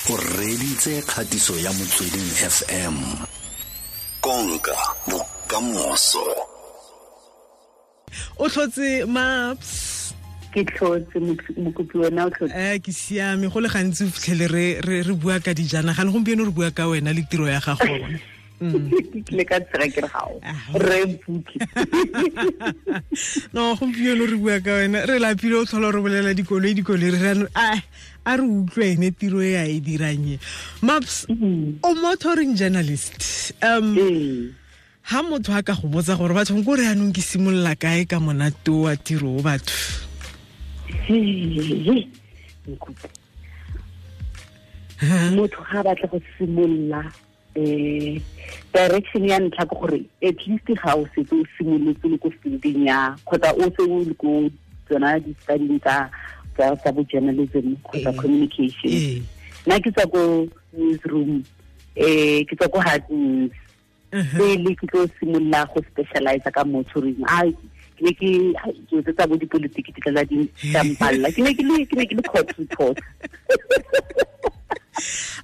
O reditse kgatiso ya Motsweding FM. Konka bokamoso. O tlhotse, Maps? Ke tlhotse, mokopi. Wena o tlhotse? Ke siame. Go le gantsi o fitlhele re bua ka dijanaga, le gompieno re bua ka wena le tiro ya gago. Ke tlile ka tsega ke re gao re mpuke. No, gompieno re bua ka wena. Re lapile o tlhola re bolela dikoloi, dikoloi. Re rano a re utlwe ene tiro e a e dirang e. Maps, o motoring journalist. Ha motho a ka go botsa gore batho ko re anong ke simolola kae ka monate wa tiro o batho? Mokopi, motho ga a batla go simolola, direction ya ntlha ke gore at least ga o setse o simolotse le ko fielding ya kgotsa o se o le ko tsona di-studying tsa bo journalism kgotsa communication. Nna ke tswa ko newsroom, ke tswa ko hard news pele ke tlo simolola go specialize ka motoring. A ke ne ke ke tse tsa bo dipolitiki di tla di mpalla. Ke ne ke le court reporter.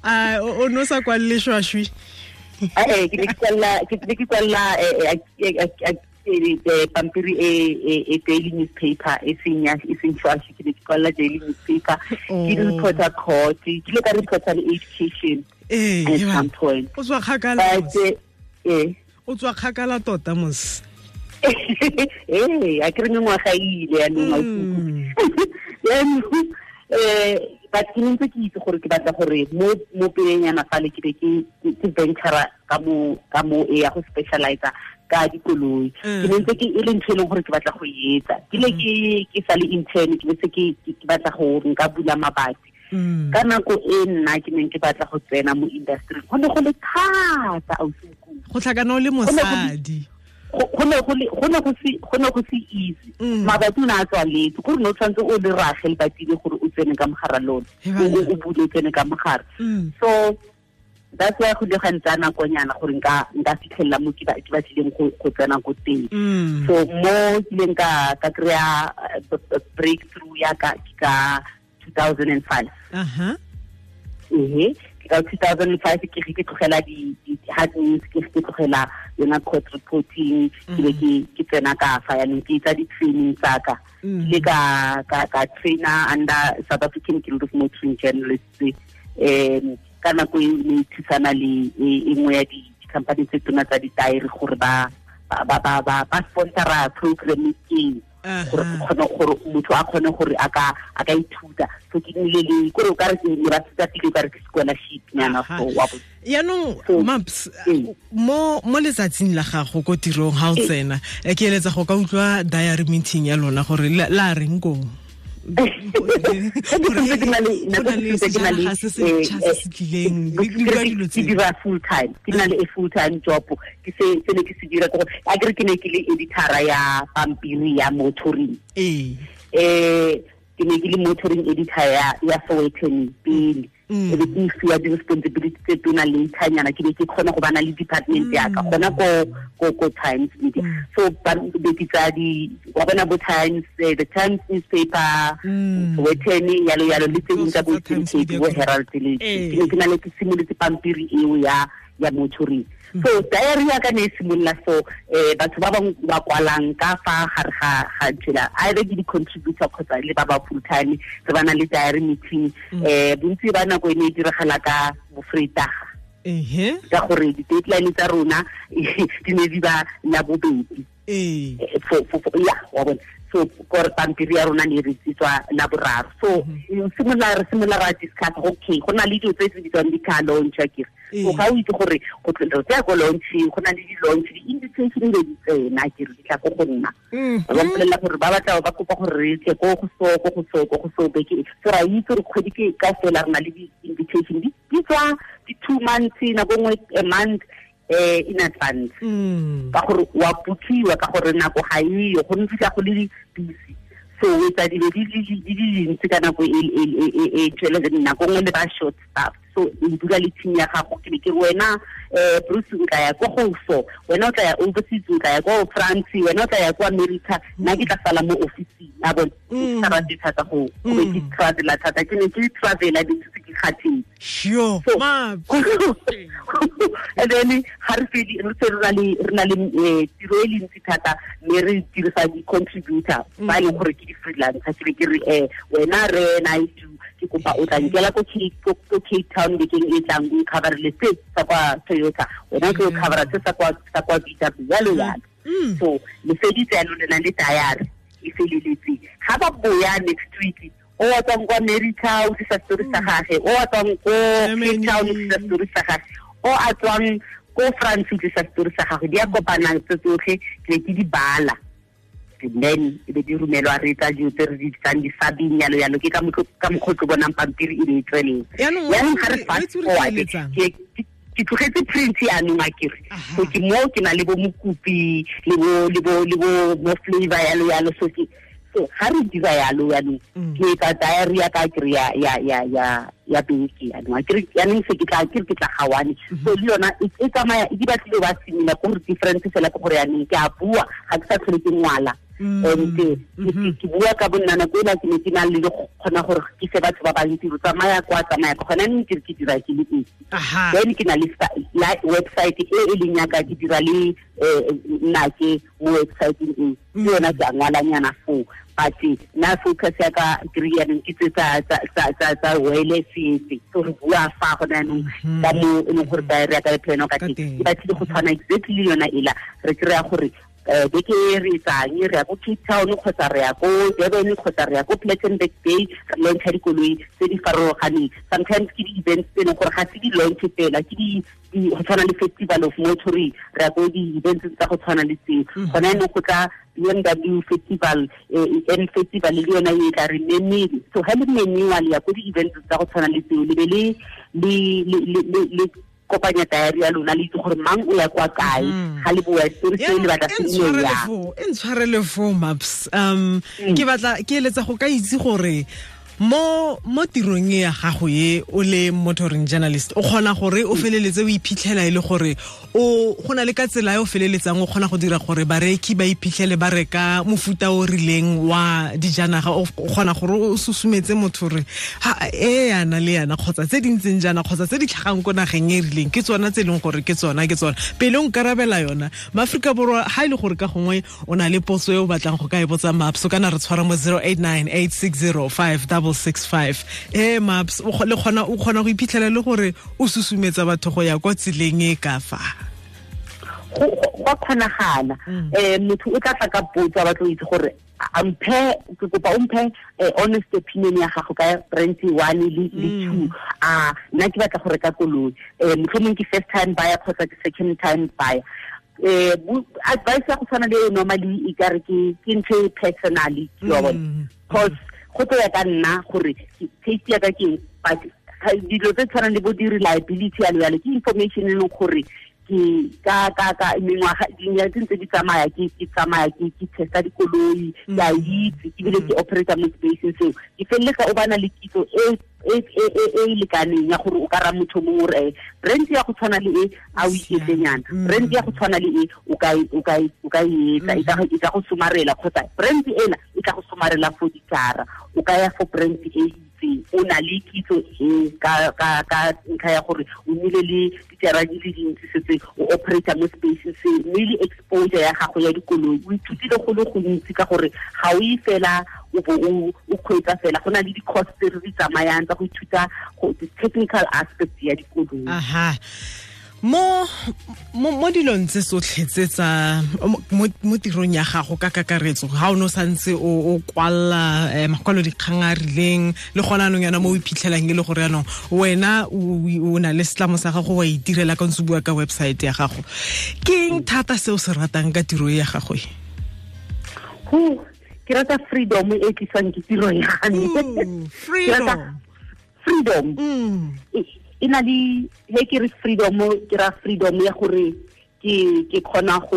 A o no sa kwalle shwashwi? Ke ne ke kwalla pampiri e daily newspaper, e seng ya, e seng shwashwi. Ke ne ke kwalla daily newspaper, ke reporter court, ke ile ka reporter le education at some point. O tswa kgakala. But O tswa kgakala tota mos. Ee, a ke re mengwaga e ile yanong, yaanong but ke ne ntse ke itse gore ke batla gore mo pelenyana fale ke be ke ventura ka mo e ya go specialize ka dikoloi. Ke ne ntse ke e le ntho e leng gore ke batla go e etsa. Ke le ke sa le intern, ke bese ke batla go nka bula mabati. Ka nako e nna ke neng ke batla go tsena mo industry, go ne go le thata, ausi. Go tlhakana o le mosadi. Go ne go se easy. Mabati o ne a tswaletse gore ne o tshwanetse o le rage lebatile gore o tsene ka mogara lone, o bule, o tsene ka mogare. So that's why go ile ga ntsaya nakonyana gore nka fitlhelela mo ke batlileng go tsena ko teng. So mo kileng ka kry-a breakthrough ya ka ke ka 2005. Ehe, ke ka 2005 ke ge ke tlogela di hard news, ke ge ke tlogela yona court reporting, ke be ke tsena ka fa yanong ke etsa di-training tsa ka. Ke ile ka trainer under South African Guild of Motoring Journalists. Ka nako e ne e thusana le e nngwe ya di-company tse tona tsa ditaere gore ba sponsora program eo gore kgone gore motho a kgone gore a ka ithuta. So ke nnile le kore o ka re ke ne ba thuta pele, o ka re ke scholarship nyana. So wa bo Yaanong, Maps, mo letsatsing la gago ko tirong ga o tsena, ke eletsa go ka utlwa diary meeting ya lona gore la reng koo. Ke sentse ke na le Go nako na le ke sentse ke na le sejanaga se se ntšha se se tlileng, le bua dilo ke tseo. Dira full time, ke na le a full time job. Ke se ne ke se dira ke gore a kere ke ne ke le editora ya pampiri ya motoring. Ke ne ke le motoring editor ya Sowetan pele. E be ke fiwa di-responsibility tse tona later nyana, ke be ke kgona go bana le department ya ka gona ko Times Media. So ba be ke tsaya di wa bona bo Times, the Times newspaper, Sowetan, yalo yalo, le tse ding tsa bo Tsotlhe tsa Times Eastern Cape, Media bo Group. Herald le ke ne ke na le ke simolotse pampiri eo ya motoring. So diary ya ka ne e simolola. So batho ba bangwe ba kwalang ka fa gare ga nthela, either ke di-contributor kgotsa le ba ba full time, re ba na le diary meeting. Bontsi ba nako e ne e diragala ka bofreitaga ka gore di-deadline tsa rona di ne di ba la bobedi. Ya wa bona, so kore pampiri ya rona ne re tswa la boraro. So simolola re simolola ra discuss, okay, go na le dilo tse di bitswang di-car launch akere. So ga o itse gore go re tsaya ko launching, go na le di-launch, di-invitation be di tsena akere, di tla ko go nna. Ba mpolelela gore ba batla, ba kopa gore re tle ko go so, ko go so, ko go so beke. So ra itse gore kgwedi ke ka fela re na le di-invitation di tswa di-2 months, nako nngwe a month in advance ka gore wa bookiwa, ka gore nako ga eyo go ntse go le busy. So o etsa dilo di le dintsi ka nako e tswele, nako nngwe le ba short staff. So o dula le team ya gago, ke be ke wena Bruce o tla ya ko go so, wena o tla ya overseas, o tla ya ko France, wena o tla ya ko America, nna ke tla sala mo office ya bona. Ke sa rate thata go be ke travela thata, ke ne ke travela di tse ke kgathetse. Sure. And then ha re fedi re se re na le tiro e le ntsi thata, mme re dirisa di-contributor ba e leng gore ke di-freelancer. Ke be ke re wena re na ke kopa o tla nkela ko Cape Town bekeng e tlang, o coverele se sa kwa Toyota, wena ke o covera se sa kwa VW, yalo yalo. So le feditse yalo, le na le diary e feleletse. Ga ba boya next week, o wa tswang kwa America o tlisa story sa gage, o wa tswang ko Cape Town o tlisa story sa gage, o a tswang ko France o tlisa story sa gagwe. Di a kopanang tse tsotlhe, ke ke di bala, and then e be di romelwa, re tsa dilo tse re di bitsang di-subbing, yalo yalo. Ke ka mokgwa o tlo bonang pampiri e be e tswelela. Yaanong ga re fast forward, ke tlogetse print yaanong a kere. So ke mo ke na le bo mokopi le bo flavor yalo yalo. So ke so ga re dira yalo yaanong, ke etsa diary ya ka kere ya beke yaanong a kere. Yaanong se ke tla ke tla gawane. So le yona e tsamaya e di batlile ba similar, ko gore difference fela ke gore yaanong ke a bua, ga ke sa tlhole ke ngwala. And ke bua ka bonna nako ela ke ne ke na le go kgona gore ke se batho ba bantsi go tsamaya kwa tsamaya ka gona neng ke dira ke le esi. Then ke na le website e e leng yaka, ke dira le nnake mo websiteng e, ke yona ke a ngwalanyana foo. But nna focus ya ka ke re yaanong ke tse tsa wireless setse. So re bua fa gona yaanong ka mo e leng gore diary ya ka e plano ka teng, e batlile go tshwana exactly le yona ela. Re kry-a gore beke e re etsang, re ya ko Cape Town kgotsa re ya ko Durban kgotsa re ya ko Plettenberg Bay, re launcha dikoloi tse di farologaneng. Sometimes ke di-events tse e leng gore ga se di-launch fela, ke go tshwana le Festival of Motoring, re ya ko di-events tsa go tshwana le tseo. Gona yaanong go tla BMW Festival, M Festival le yona e tla re memile. So ga le memiwa le ya ko di-events tsa go tshwana le tseo, le be le kopanya diary ya lona, le itse gore mang o ya kwa kae, ga le boa story se le batla se nne ya. E ntshwarele fo Maps. Ke batla ke eletsa go ka itse gore mo tirong e ya gago e o le motoring journalist, o kgona gore o feleletse o iphitlhela e le gore o go na le ka tsela e o feleletsang o kgona go dira gore bareki ba iphitlhele ba reka mofuta o rileng wa dijanaga, o kgona gore o susumetse motho gore ha e yana le yana kgotsa tse di ntseng jaana kgotsa tse di tlhagang ko nageng e rileng ke tsona tse e leng gore ke tsona pele o nkarabela yona. Maaforika Borwa, ha e le gore ka gongwe o na le potso e o batlang go ka e botsa Maps, o kana re tshwara mo 0898605665. Maps, o kgona go iphitlhela le gore o susumetsa batho go ya kwa tseleng e ka fa? Go kgonagala. Motho o tla tla ka potso, a batla go itse gore amphe, ke kopa o mphe honest opinion ya gago ka brand 1 le 2. A nna ke batla go reka koloi, mohlomong ke first time buyer kgotsa ke second time buyer. Advice ya go tshwana le normally e ka re ke ntho e personally, ke wa bona, because go tlo ya ka nna gore taste ya ka ke, but dilo tse tshwanang le bo di-reliability yalo yalo ke information e leng gore ke ka mengwaga dinyaga tse ntse di tsamaya, ke tsamaya ke testa dikoloi, ke a itse ebile ke operator mo spaceng seo, ke feleletsa o bana le kitso e e lekaneng ya gore o ka ra motho mongwe gore brand ya go tshwana le e a o iketlenyana, brand ya go tshwana le e o ka e etsa, e ka go somarela, kgotsa brand ena e ka go somarela for dijara, o ka ya for brand e itseng, o na le kitso e ka ntlha ya gore o nnile le dijara di le dintsi setse o operator mo spaceng se, mme le exposure ya gago ya dikoloi o ithutile go le gontsi ka gore ga o e fela o bo o kgweetsa fela, go na le di-course tse re di tsamayang tsa go ithuta technical aspect ya dikoloi. Aha. Mo dilong tse tsotlhe tse tsa mo tirong ya gago ka kakaretso, ga o ne o santse o kwalla makwalo dikgang a rileng le gona anong yana mo o iphitlhelang e le gore yanong wena o na le setlamo sa gago wa itirela ka ntse bua ka website ya gago, ke eng thata se o se ratang ka tiro ya gago e? Ke rata freedom e tliswang ke tiro ya me. Freedom. E na le he ke re freedom, ke ra freedom ya gore ke kgona go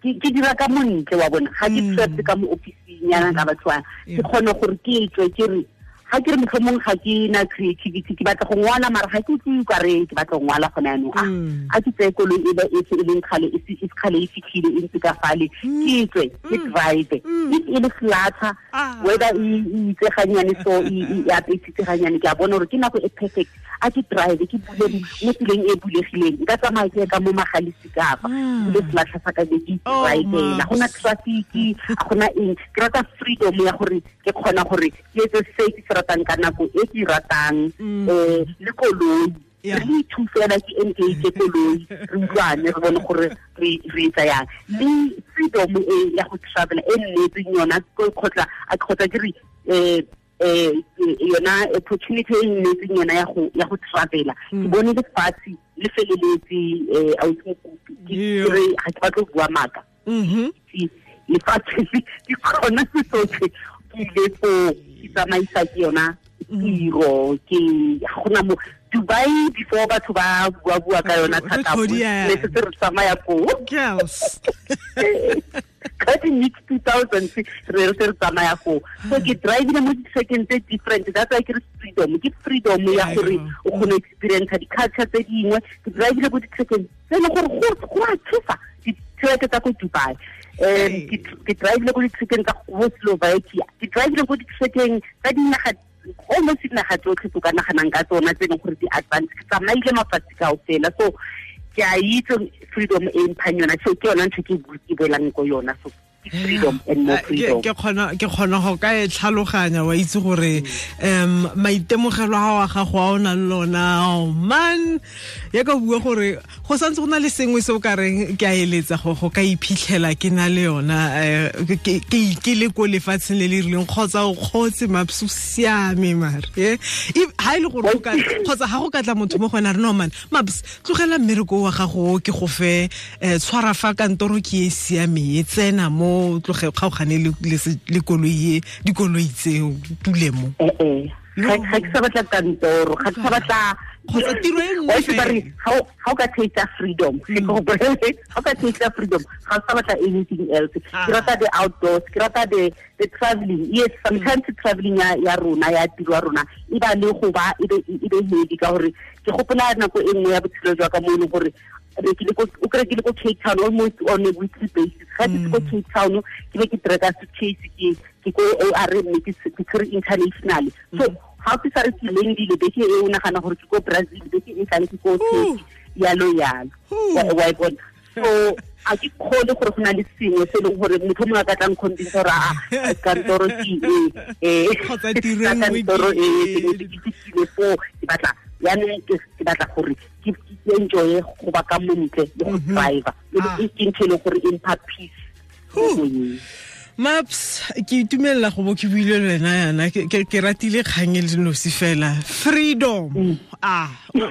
ke dira ka montle wa bona, ga ke trapped ka mo office-ing yana ka batho ba, ke kgona gore ke tswe ke re Ga ke re motlhomong ga ke na creativity, ke batla go ngwala mara ga ke utlwe ka re ke batla go ngwala gone yanong. A ke tseye koloi e e se e leng kgale e se kgale e fitlhile e ntse ka fale, ke tswe ke drive. If e le flatter, whether e itse ganyane so e apesitse ganyane, ke a bona gore ke nako e perfect. A ke drive ke bule mo tseleng e bulegileng, nka tsamaya ke ka mo magalisi kapa bule flatter sa ka be ke drive. Ga gona traffic, ga gona eng. Ke rata freedom ya gore ke kgona gore ke etse se ke se ratang ka nako e ke ratang, le koloi. Re ithusela ke engage koloi, re utlwane, re bone gore re etsa yang. Le freedom e ya go travel e nnetseng yona kgotsa kgotsa ke re yona opportunity e nnetseng yona ya go travela. Ke bone lefatshe le feleletse, a o ke re ga ke batle go bua maaka. Lefatshe ke kgona se tsotlhe, ke ile foo ke tsamaisa ke yona tiro, ke gona mo Dubai before batho ba bua ka yona thata, ne setse re tsamaya koo. Ka di mid 2000 re re tsamaya koo. So ke drivile mo di-second tse different. That's why ke re freedom, ke freedom ya gore o kgone experience di-culture tse dingwe. Ke drivile ko di-second tse e leng gore go a tshosa, di-track tsa ko Dubai. Ke drivile ko di-trackeng tsa ko Slovakia, ke drivile ko di-trackeng tsa dinaga, almost dinaga tsotlhe tse o ka naganang ka tsona tse e leng gore di advance. Ke tsamaile mafatshe kaofela, so ke a itse freedom e mphang yona. So ke yona ntho ke boelang ko yona. So freedom and more freedom. Ke kgona go ka e tlhaloganya, wa itse gore maitemogelo a wa gago a o nang le lona, oh man, ya ka bua gore go santse go na le sengwe se o ka reng ke a eletsa go ka iphitlhela ke na le yona, ke le ko lefatsheng le le rileng, kgotsa o kgotse Maps o siame mare ha e le gore kgotsa ga go ka tla motho mo go wena re no man Maps tlogela mmereko wa gago ke go fe tshwara fa kantoro ke e siame e tsena mo tloge kgaogane le koloi e dikoloi tseo tule mo. Ga ke sa batla kantoro, ga ke sa batla kgotsa tiro e nngwe fela. Ga o ka taste freedom, ga o ka taste freedom, ga o sa batla anything else. Ke rata the outdoors, ke rata the traveling. Yes, sometimes traveling ya rona ya tiro ya rona e ba le go ba e be heavy, ka gore ke gopola nako e nngwe ya botshelo jwa ka mo e leng gore o kry ke le ko Cape Town almost on a weekly basis. Ga ke ko Cape Town ke be ke treka suitcase ke ko OR mme ke tshwere international. So ga ke sa re ke landile beke e o nagana gore ke ko Brazil, beke e tlang ke ko Turkey, yalo yalo. Wa e bona. So a ke kgone gore go na le sengwe se e leng gore motho mongwe a ka tlang convince gore a kantoro ke e kgotsa tiro e nngwe kantoro e ke fitlhile foo, ke batla yaanong ke batla gore ke enjoye go ba ka montle le go driver, e ke ntho e leng gore e mpha peace. Maps, ke itumelela go bo ke buile le wena yana, ke ratile kgang e le nosi fela. Freedom.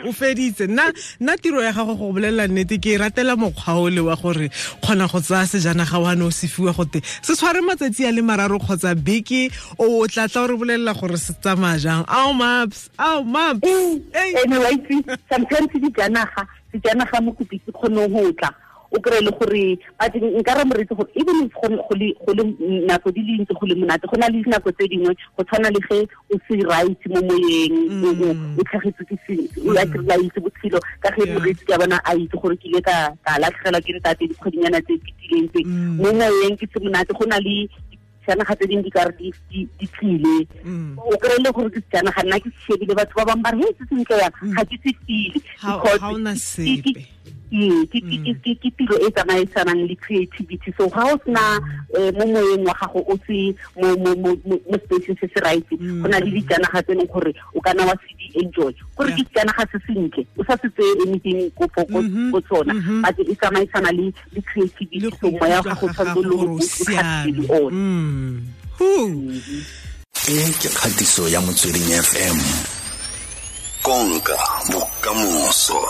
O feditse. Nna tiro ya gago go bolelela nnete, ke ratela mokgwa o le wa gore kgona go tsaya sejanaga wa ne o se fiwa gote se tshware matsatsi a le mararo kgotsa beke, o tla tla o re bolelela gore se tsamaya jang. Ao Maps, ao Maps. Anyway, sometimes sejanaga mokopi se kgone go tla o kry le gore but nka re moreetsi gore even if go le nako di le ntse go le monate, go na le dinako tse dingwe go tshwana le ge o se right mo moyeng, o tlhagetswe ke sengwe, o a kry-a itse botshelo ka ge moreetsi ke a bona a itse gore ke ile ka latlhegelwa ke ntate dikgwedinyana tse fetileng tse. Mo moyeng ke se monate, go na le sejanaga tse dingwe di ka re di tlile, o kry-e le gore ke sejanaga nna ke se shebile, batho ba bangwe ba re he se sentle yang, ga ke se feel because ke tiro e tsamaisanang le creativity. So ga o sena mo moyeng wa gago o se mo spaceng se se right, go na le dijanaga tse e leng gore o kana wa se di enjoy, gore ke sejanaga se sentle o sa se tseye anything ko tsona, but e tsamaisana le creativity. So moya wa gago tshwanetse le o tlhatsile one. E ke kgatiso ya Motsweding FM, konka bokamoso.